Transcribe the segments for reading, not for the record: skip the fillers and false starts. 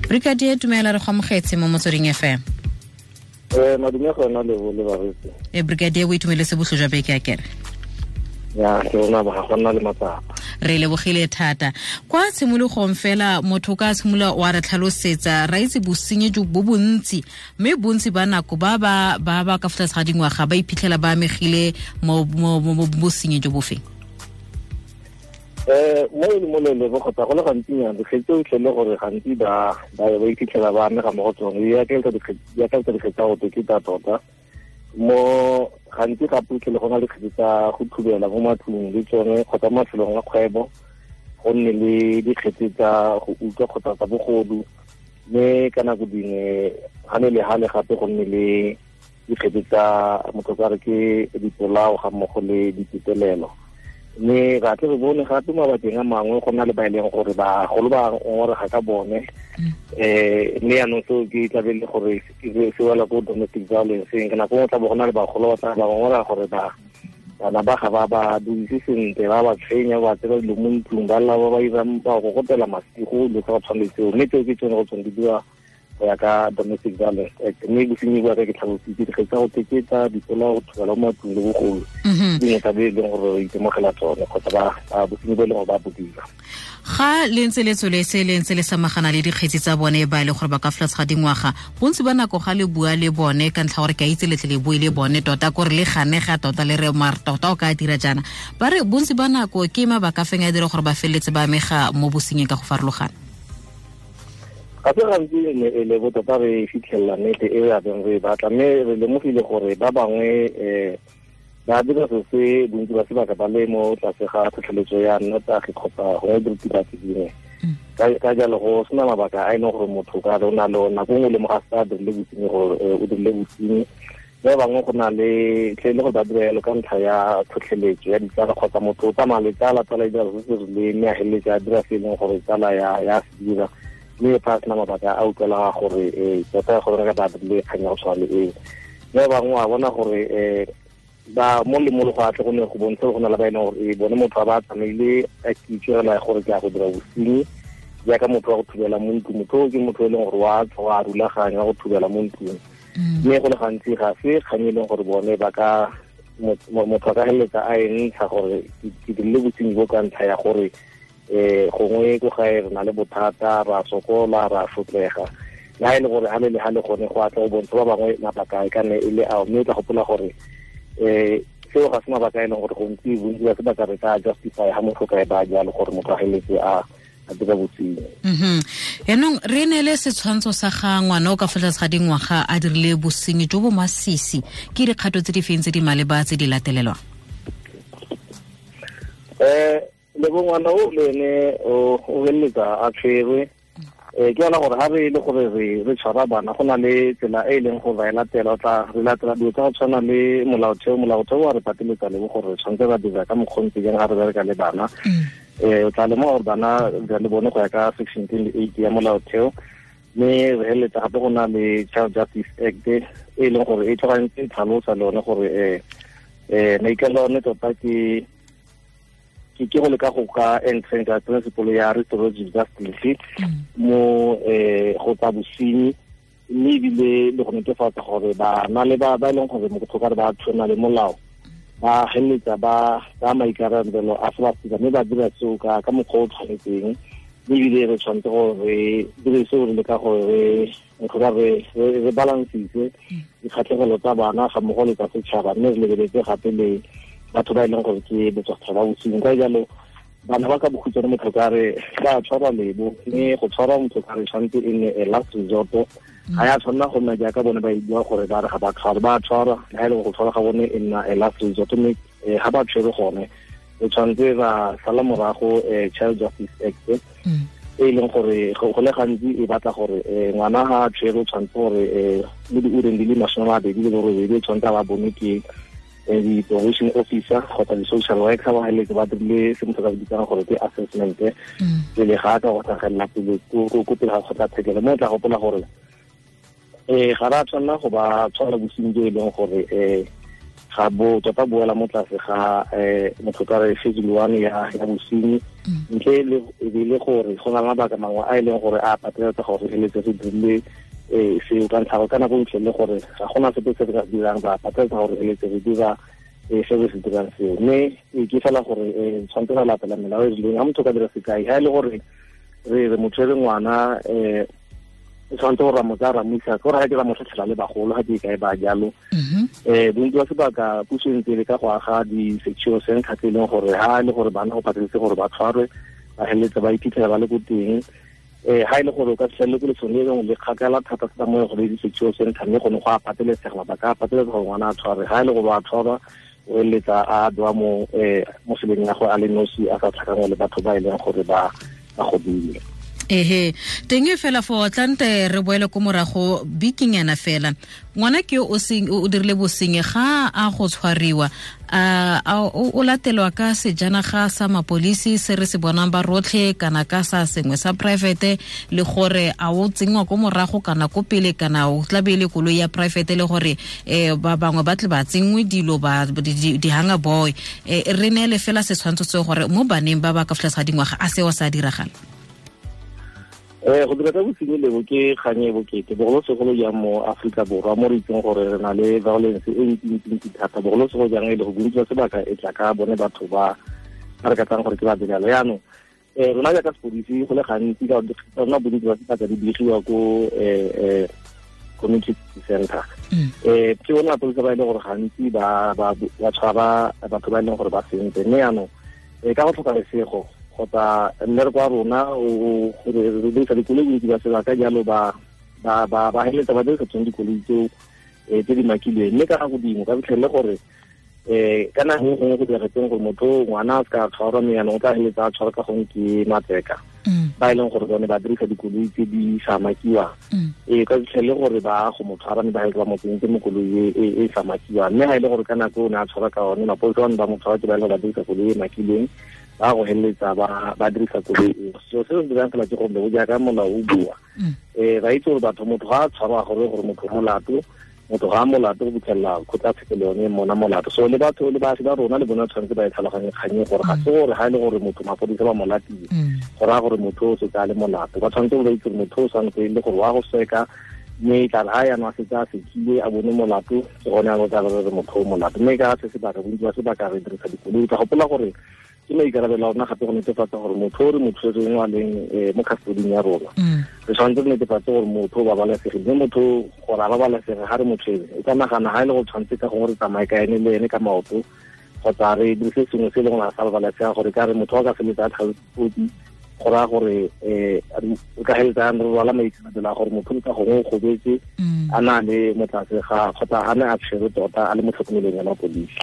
Brigadier, dumela, re go amogetse mo Motsweding FM. Madume gona le bo le baretsi. Brigadier, o itumeletse botlho jwa beke a kere? Ya, ke rona ba ga gona le matsapa. Re lebogile thata. Kwa tshimologong fela, motho ka tshimolola wa re tlhalosetsa, ra itse bosenyi jo bo bontsi, mme bontsi ba nako ba ba ba ba ka fa tlase ga dingwaga ba iphitlhela ba amegile mo bosenyi jo bofeng? Mo e le mo lele bo kgotsa go le gantsinyana dikgetse tse o tlhele gore gantsi ba ba iphitlhela ba amega mo go tsone di akaretsa dikgetse tsa go teketa tota. Mo gantsi gape o tlhele go na le dikgetse tsa go thubela mo matlong le tsone kgotsa mo mafelong a kgwebo, go nne le dikgetse tsa go utlwa kgotsa tsa bogodu, mme ka nako dingwe ga ne le gale gape go nne le dikgetse tsa motho ka re ke dipolao ga mmogo le ditetelelo. Mme ra tle re bone gape mabakeng a mangwe go na le ba e leng gore bagolo ba ngongorega ka bone, mme jaanong seo ke tlabe le gore se wela ko domestic violence. Ka nako nngwe tla bo go na le bagolo ba tla ba ngongorega gore bana ba ga ba ba duise sentle, ba ba tshwenya, ba tsela dilo mo ntlong, ba lla ba ba irang, ba gogotela masigo, dilo tsa go tshwana le tseo. Mme tseo ke tsone go tsone di dira go ya ka Domestic Violence Act. Mme bosenyi bo ka ke tlhalositse dikgetse tsa go teketa, dipolao, go thubela mo matlong le bogolo, dingwe tsa bo e leng gore re itemogela tsone kgotsa ba bosenyi bo e leng gore ba bo dira. Ga le ntse le tsweletse le ntse le samagana le dikgetsi tsa bone ba e le gore ba ka fa tlase ga dingwaga, bontsi ba nako ga le bua le bone ka ntlha gore ke a itse letle le bue le bone tota kore le ganega tota le re mare tota o ka dira jaana, ba re bontsi ba nako ke mabaka a feng a dira gore ba feleletse ba amega mo bosenying ka go farologana? Ga se gantsi e le bo tota re fitlhelela nnete e re abeng re e batla, mme re lemogile gore ba bangwe ba dira se se bontsi ba sebaka ba le mo tlase ga tlhotlheletso ya nnotagi kgotsa gongwe diritibatsi dingwe. Ka jalo go sena mabaka a e leng gore motho ka re o na le nako nngwe le mo ga sa dirile bosenyi gore o dirile bosenyi. Ba bangwe go na le tle le gore ba dira jalo ka ntlha ya tlhotlheletso ya ditsala kgotsa motho o tsamaya le tsala, tsala e dira se se rileng mme a feleletsa a dira se e leng gore tsala ya se dira, mme fa a sena mabaka a utlwela gore tota gore re ka ba dirile kgang ya go tshwana le eo. Mme ba bangwe wa bona gore ba mo le mo le go atle go ne go bontsha go na le ba e leng gore bone motho a ba tsamaile a kitso fela ya gore ke a go dira bosenyi, jaaka motho wa go thubela mo ntlong. Motho o ke motho e leng gore wa tswa a rulaganya go thubela mo ntlong, mme go le gantsi ga se kgang e leng gore bone ba ka motho a ka feleletsa a e ntsha gore ke dirile bosenyi bo ka ntlha ya gore gongwe ko gae re na le bothata, ra sokola, ra sotlega. Le ha e le gore ha le le ha le gone go atla go bontsha ba bangwe mabaka e ka nne e le ao, mme o tla gopola gore seo ga se mabaka a e leng gore gontsi bontsi ba sebaka re ka justify ha motho ka e ba jalo gore motho a feleletse a dira bosenyi. Yaanong re neele setshwantsho sa ga ngwana o ka fa tlase ga dingwaga a dirile bosenyi jo bo masisi, ke dikgato tse di feng tse di maleba tse di latelelwang? Le bo ngwana o le ene o feleletsa a tshwerwe. Ke yona gore ha re le gore re tshwara bana go na le tsela e e leng gore ba e latela, o tla re latela dilo tsa go tshwana le molaotheo. Molaotheo wa re pateletsa le gore re tshwanetse ra dira ka mokgwa o ntse jang ga re bereka le bana. O tla lemoga gore bana le bone go ya ka section 28 ya molaotheo, mme re feleletsa gape go na le Child Justice Act e e leng gore e tloga ntse e tlhalosa le yone gore maikaelelo a one tota ke go leka go ka entrench principle ya restorative justice mo go tsa bosenyi, mme ebile le go netefatsa gore bana le ba e leng gore motho ka re ba tshwana le molao ba feleletsa ba tsaya maikarabelo a se ba se dira, mme ba dira seo ka mokgwa o tshwanetseng. Mme ebile re tshwanetse gore re dire seo re leka gore re balancise dikgatlhegelo tsa bana ga mmogo le tsa setšhaba, mme re lebeletse gape le batho ba e leng gore ke botswasetšhaba ba bosenyi. Ka jalo bana ba ka bokhutshwane motho ka re ba tshwarwa lebo, mme go tshwarwa motho ka re tshwanetse e nne a last resort. Ga ya tshwanela go nna jaaka bone ba e bua gore ba re ga ba tshwarwe, ba tshwarwa, le ha e le go tshwarwa ga bone e nna a last resort, mme ga ba tshwere gone re tshwanetse ra sala morago Child Justice Act e leng gore go le gantsi e batla gore ngwana ga a tshwere o tshwanetse gore mo diureng di le 28 o tshwanetse a ba bone ke di-probation officer kgotsa di-social worker ba feleletse ba dirile se motho ka bitsang gore ke assessment pele ga a ka go tlhagelela pele ko pele ga kgotlatshekelo. Mme o tla gopola gore ga re a tshwanela go ba tshwara bosenyi jo e leng gore ga bo tota boela mo tlase ga motho ka re schedule 1 ya bosenyi, ntle le e le gore go na le mabaka mangwe a e leng gore a pateletsa gore feletse re dirile seo ka ntlha ka nako ntle le gore ga gona sepe se re ka se dirang, ba pateletsa gore feletse re dira se re se dirang seo. Mme ke fela gore tshwanetse ra latela melao e rileng. Ga motho ka dira sekai, ga e le gore re re motho e re ngwana o tshwanetse gore ra mo tsaya ra mo isa, ke gore ga ke ra mo tlhatlhela le bagolo ga ke kae ba jalo. Bontsi ba sebaka puso e ntse e le ka go aga di-secure center tse e leng gore ha e le gore bana go pateletse gore ba tshwarwe, ba feleletse ba iphitlhela ba le ko teng. Ha e le gore o ka fitlhelele ko lefelong le lengwe le kgakala thata thata mo e gore di-secure center, mme gone go a pateletsega, mabaka a pateletsa gore ngwana a tshwarwe. Ha e le gore ba tshwarwa, o feleletsa a bewa mo seleng ya go a le nosi, a sa tlhakangwe le batho ba e leng gore ba godile. Ehe, teng e fela fo tlante re boele ko morago bikinyana fela. Ngwana ke o seng o dirile bosenyi, ga a go tshwariwa a o latelwa ka sejanaga sa mapolisi se re se bonang ba rotlhe, kana ka sa sengwe sa private, le gore a o tsenngwa ko morago kana ko pele, kana o tla be e le koloi ya private, le gore ba bangwe ba tle ba tsenngwe dilo ba di-hanger boy? Re neele fela setshwantsho seo gore mo baneng ba ba ka fa tlase ga dingwaga a seo sa diragala. Go dira ka bosenyi lebo ke kgang e bokete, bogolosegolo jang mo Aforika Borwa mo re itseng gore re na le violence e ntsi-ntsi thata, bogolosegolo jang e le go bontsi ba sebaka e tla ka bone batho ba ba re ka tsang gore ke ba belalo. Yaanong rona jaaka sepodisi go le gantsi ka rona bontsi ba sebaka di begiwa ko community center. Ke bone mapodisa ba e leng gore gantsi ba tshwara batho ba e leng gore ba sentse, mme yaanong ka go tlhoka lesego kgotsa mmereko wa rona o gore re dirisa dikoloi bontsi ba sebaka jalo, ba feleletsa ba dirisa tsone dikoloi tseo tse di makilweng. Mme ka nako dingwe ka fitlhelele gore ka nako e gongwe go diragetseng gore motho ngwana a se ka tshwarwa, mme yaanong o tla feleletsa a tshwarwa ka gongwe ke matseka ba e leng gore bone ba dirisa dikoloi tse di sa makiwang. Ka fitlhelele gore ba go mo tshwara, mme ba feleletsa ba mo tsentse mo koloi e sa makiwang. Mme ga e le gore ka nako o ne a tshwarwa ka one, mapodisa bane ba mo tshwara ke ba e leng gore ba dirisa koloi e makilweng, ba go feleletsa ba dirisa koloi eo. Selo se se dirang fela ke gore bo jaaka molao o bua, ra itse gore batho motho ga a tshwarwa gore motho molato, motho ga a molato go fitlhelela kgotlatshekelo yone mona molato. So le batho le baagi ba rona le bone tshwanetse ba e tlhaloganye kgang gore ga se gore ga e le gore motho mapodisa ba mo latile go raya gore motho o setse a le molato. Ba tshwanetse ba itse gore motho o tshwanetse e le gore wa go seka, mme e tla re ga yaanong a setse a sekile a bone molato, ke gone a tla re motho o molato. Mme ka se sebaka bontsi ba sebaka re dirisa dikoloi. Ka gopola gore ke maikarabelo a rona gape go netefatsa gore motho o re mo tshwereng a leng mo custoding ya rona, re tshwanetse re netefatse gore motho o babalesegile. Mme motho gore a babalesege ga re mo tshwere, o ka nagana ga e le go tshwanetse ka gongwe re tsamaye ka ene le ene ka maoto, kgotsa re dirise sengwe se e leng gore a sa babalesega, gore ka re motho a ka feletsa a tlhaotsi, go raya gore o ka feleletsa re rwala maikarabelo a gore motho ka gongwe o gobetse a na le mo tlase ga kgotsa a ne a tshwere tota a le mo tlhokomelong ya mapodisi.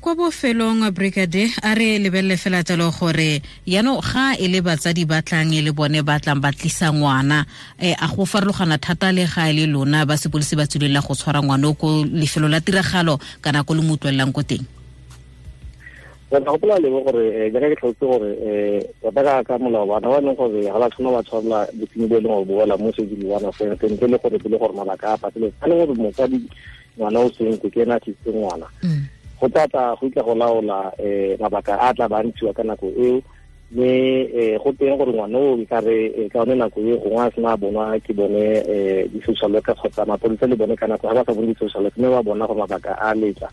Kwa bofelong, brigade, a re lebelele fela jalo gore yaanong ga e le batsadi ba tlang e le bone ba tlang ba tlisa ngwana, a go farologana thata le ga e le lona ba sepodisi ba tswelelela go tshwara ngwana o ko lefelo la tiragalo kana ko le mo utlwelelang ko teng? Re tla gopola lebo gore jaaka ke tlhalositse gore tota ka molao bana ba e leng gore ga ba tshwana ba tshwarela bosenyi bo e leng gore bo wela mo schedule 1 offense, ntle le gore pele gore mabaka a pateletse a le gore motsadi ngwana o sentse ke ena a tlisitse ngwana, go tla tla go itla go laola mabaka a tla ba ntshiwa ka nako eo. Mme go teng gore ngwana o e ka re ka yone nako e gongwe a sena a bonwa ke bone di-social worker kgotsa mapodisa le bone ka nako ga ba sa bone di-social worker, mme ba bona gore mabaka a letla,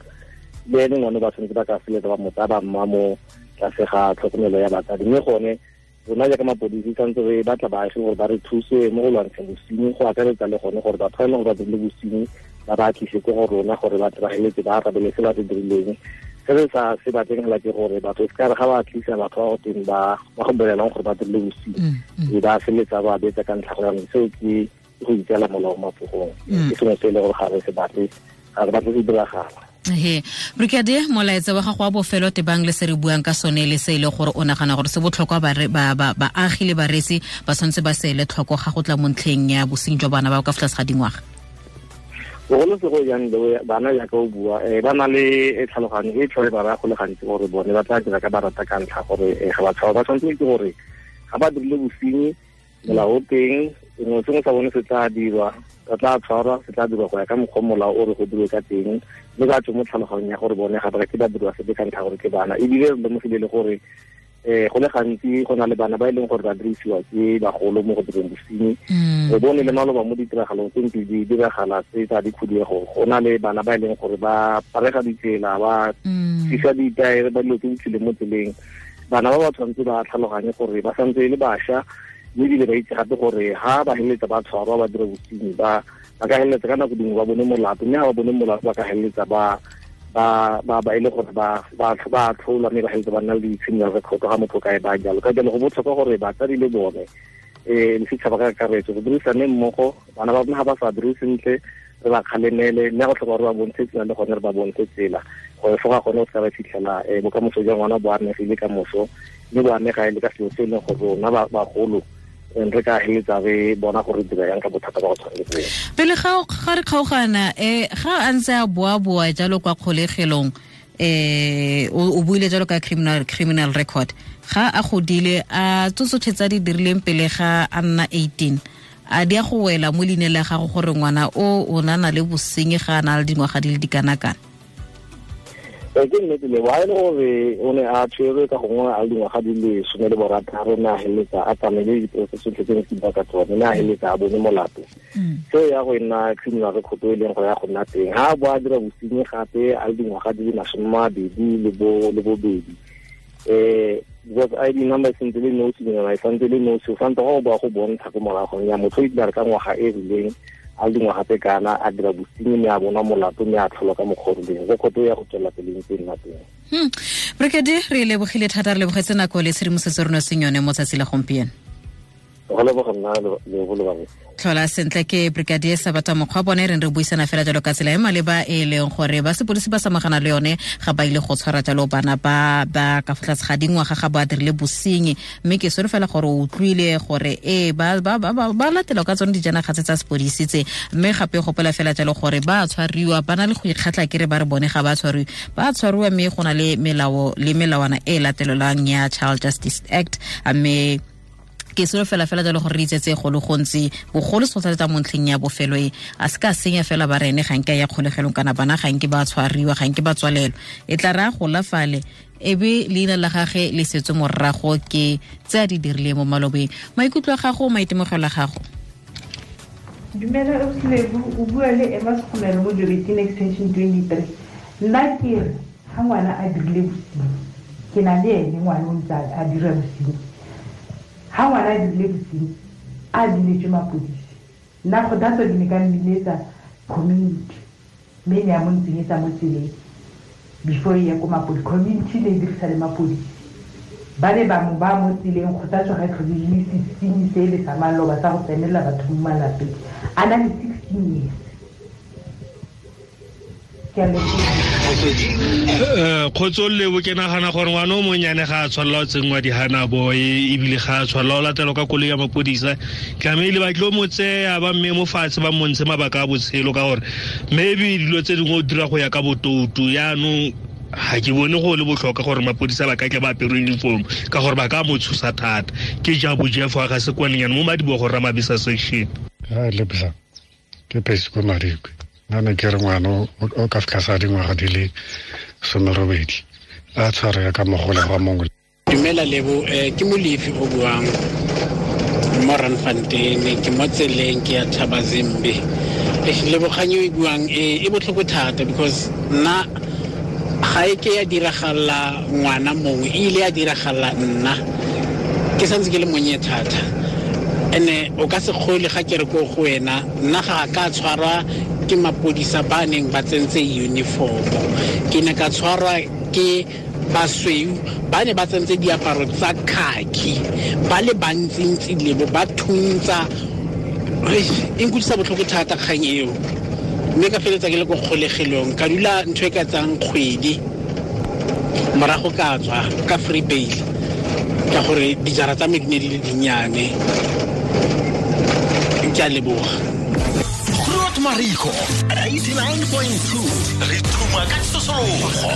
le ene ngwane ba tshwanetse ba ka feletsa ba mo tsaya ba mma mo tlase ga tlhokomelo ya batsadi. Mme gone rona jaaka mapodisi tshwanetse re batla baagi gore ba re thuse mo go lwantsheng bosenyi, go akaretsa le gone gore batho ba e leng gore ba dirile bosenyi ba ba tlise ko go rona gore ba tle ba feletse ba arabele se ba se dirileng. Se re sa se batleng fela ke gore batho se ka re ga ba tlisa batho ba go teng ba go bolelang gore ba dirile bosenyi, e ba feletsa ba betsa ka ntlha gore seo ke go itseela molao mo matsogong. Ke sengwe se e le gore ga re se batle, ga re batle se diragala. He, brigadier, molaetsa wa gago wa bofelo tebang le se re buang ka sone le se e le gore o nagana gore se botlhokwa baagi le bareetsi ba tshwanetse ba se ele tlhoko ga go tla mo ntlheng ya bosenyi jwa bana ba ka fa tlase ga dingwaga? Bogolosego jang bana jaaka o bua, ba na le tlhaloganyo e tlhole ba raya go le gantsi gore bone ba tla dira ka ba rata ka ntlha gore ga ba tshaba. Ba tshwanetse ke gore ga ba dirile bosenyi, molao o teng, Sengwe sengwe sa bone se tla dirwa, ba tla tshwarwa, se tla dirwa go ya ka mokgwa molao o re go dirwe ka teng, mme ba tswe mo tlhaloganyong ya gore bone ga ba ke ba dirwa sepe ka ntlha gore ke bana. Ebile re lemogile le gore go le gantsi go na le bana ba e leng gore ba dirisiwa ke bagolo mo go direng bosenyi. Re bone le maloba mo ditiragalong tse ntse di diragala tse tsa dikhuduego, go na le bana ba e leng gore ba parega ditsela, ba fisa ditaere, ba dilo tse di tswileng mo tseleng. Bana ba ba tshwanetse ba tlhaloganye gore ba santse e le bašwa, mme ebile ba itse gape gore ha ba feleletsa ba tshwarwa ba dira bosenyi, ba ka feleletsa ka nako dingwe ba bone molato, mme ha ba bone molato ba ka feleletsa ba e le gore ba tlholwa, mme ba feleletsa ba nna le di-criminal record ga motho kae ba jalo. Ka jalo go botlhokwa gore batsadi le bone le setšhaba ka kakaretso go dirisane mmogo. Bana ba rona ga ba sa dire sentle re ba kgalemele, mme go tlhoka gore ba bontshe tsela le gone re ba bontshe tsela gore foga gone o se ka ba fitlhela bokamoso jwa ngwana bo amegile ka moso, mme bo amega e le ka selo se e leng gore rona bagolo re ka heletsa re bona gore dira yang ka bothata ba go tshwana le boo. Pele ga re kgaogana, ga a ntse a boa-boa jalo kwa kgolegelong, o buile jalo ka criminal record, ga a godile a tsotlhe tsa di dirileng pele ga a nna 18, a di a go wela mo leineng la gago gore ngwana o na le bosenyi ga a na le dingwaga di le dikanakana? Ke nnete le wa e le gore o ne a tshwerwe ka gongwe a le dingwaga di le 16, mme a feleletsa a tsamaile diporofese tsotlhe tse ne ke bua ka tsone, mme a feleletsa a bone molato. Seo ya go nna criminal record e leng gore ya go nna teng. Ha a bo a dira bosenyi gape a le dingwaga di le 22, because ID number sentse le nosi, e santse le nosi, o santse go boa go bontsha ko moragong ya motho o itse ka ngwaga e rileng a le dingwaga tse kana a dira bosenyi, mme a bona molato, mme a tlholwa ka mokgwa o rileng. Record ya go tswela pele ntse nna teng. Brigadier, re lebogile thata, re lebogetse nako le tshedimosetso re netseng yone mo tsatsi la gompieno. Go leboga nna le go leboga. Tlhola sentle. Ke Brigadier Sabata Mokgwa bone re re buisana fela jalo ka tsela e maleba e leng gore ba sepodisi ba samagana le yone ga ba ile go tshwara jalo bana ba ba ka fa tlase ga dingwaga ga ba dirile bosenyi, mme ke solofela gore o utlwile gore ba ba latela ka tsone dijanaga tse tsa sepodisi tse, mme gape gopola fela jalo gore ba tshwariwa ba na le go ikgatla kere ba re bone ga ba tshwariwe, ba tshwariwa, mme go na le melao le melawana e latelelwang ya Child Justice Act. Mme ke selo fela fela jalo gore re itsetse go le gontsi bogolo se mo ntlheng ya bofelo e a se ka senya fela ba rene ga nke ya kgolegelong kana bana ga nke ba tshwariwa, ga nke ba tswalelwa, e tla re a gola fale ebe leina la gage le setswe morago ke tse a di dirileng mo malobeng. Maikutlo a gago, maitemogelo a gago? Dumela Ausi, o bua le Emma Sekhomelo mo Joubertina Extension 23. Nna ke re ga ngwana a dirile bosenyi, ke na le ene ngwana o ntse a dira bosenyi, ha ngwana a dirile bosenyi a biletswe mapodisi, nna kgothatso ke ne ka mmiletsa community, mme ne ya mo ntsenyetsa mo tseleng before e ya ko mapodisi. Community ne e dirisa le mapodisi, ba ne bangwe ba mo tseleng. Kgothatso ga e tlhole le sesenyi se le sa maloba sa go tsenelela batho mo malapeng, a na le 16 years. Kgotso lebo, ke nagana gore ngwana o monnyane ga a tshwanela go tsenngwa di-hana boy, ebile ga a tshwanela go latelwa ka koloi ya mapodisa. Tlamehile ba tlo mo tseya ba mme mo fatshe ba montshe mabaka a botshelo, ka gore maybe dilo tse dingwe o dira go ya ka botoutu. Yaanong ga ke bone go le botlhokwa gore mapodisa ba ka tle ba apere uniform, ka gore ba ka mo tshosa thata. Ke jabo Jeff wa ga Sekwanenyane mo Madibogo Ramabisa section. Lebza ke phesi ko Madikwe. Nna ne ke re ngwana o ka fitlha sa dingwaga di le 18 a tshwarega ka mogolegwa mongwe. Dumela Lebo, ke Molefi o buang mo Randfontein, ke mo tseleng ke ya Thabazimbi. Lebogang e buang e botlhoko thata because nna ga e ke ya diragala ngwana mongwe, e ile ya diragala nna ke santse ke le monnye thata. Ene o ka se kgole ga ke re ko go wena, nna ga ka tshwarwa ke mapodisa ba neng ba tsentse uniform, ke ne ka tshwarwa ke basweu ba ne ba tsentse diaparo tsa khaki, ba le bantsintsi lebo ba thuntsa. E nkutlwisa botlhoko thata kgang eo, mme ka feletsa ke le ko kgolegelong, ka dula ntho e ka tsang kgwedi, morago ka tswa ka free bail ka gore dijara tsa me di ne di le dinnyane. Ke a leboga. Groot Marico 89.2 re thuma ka tsosologo.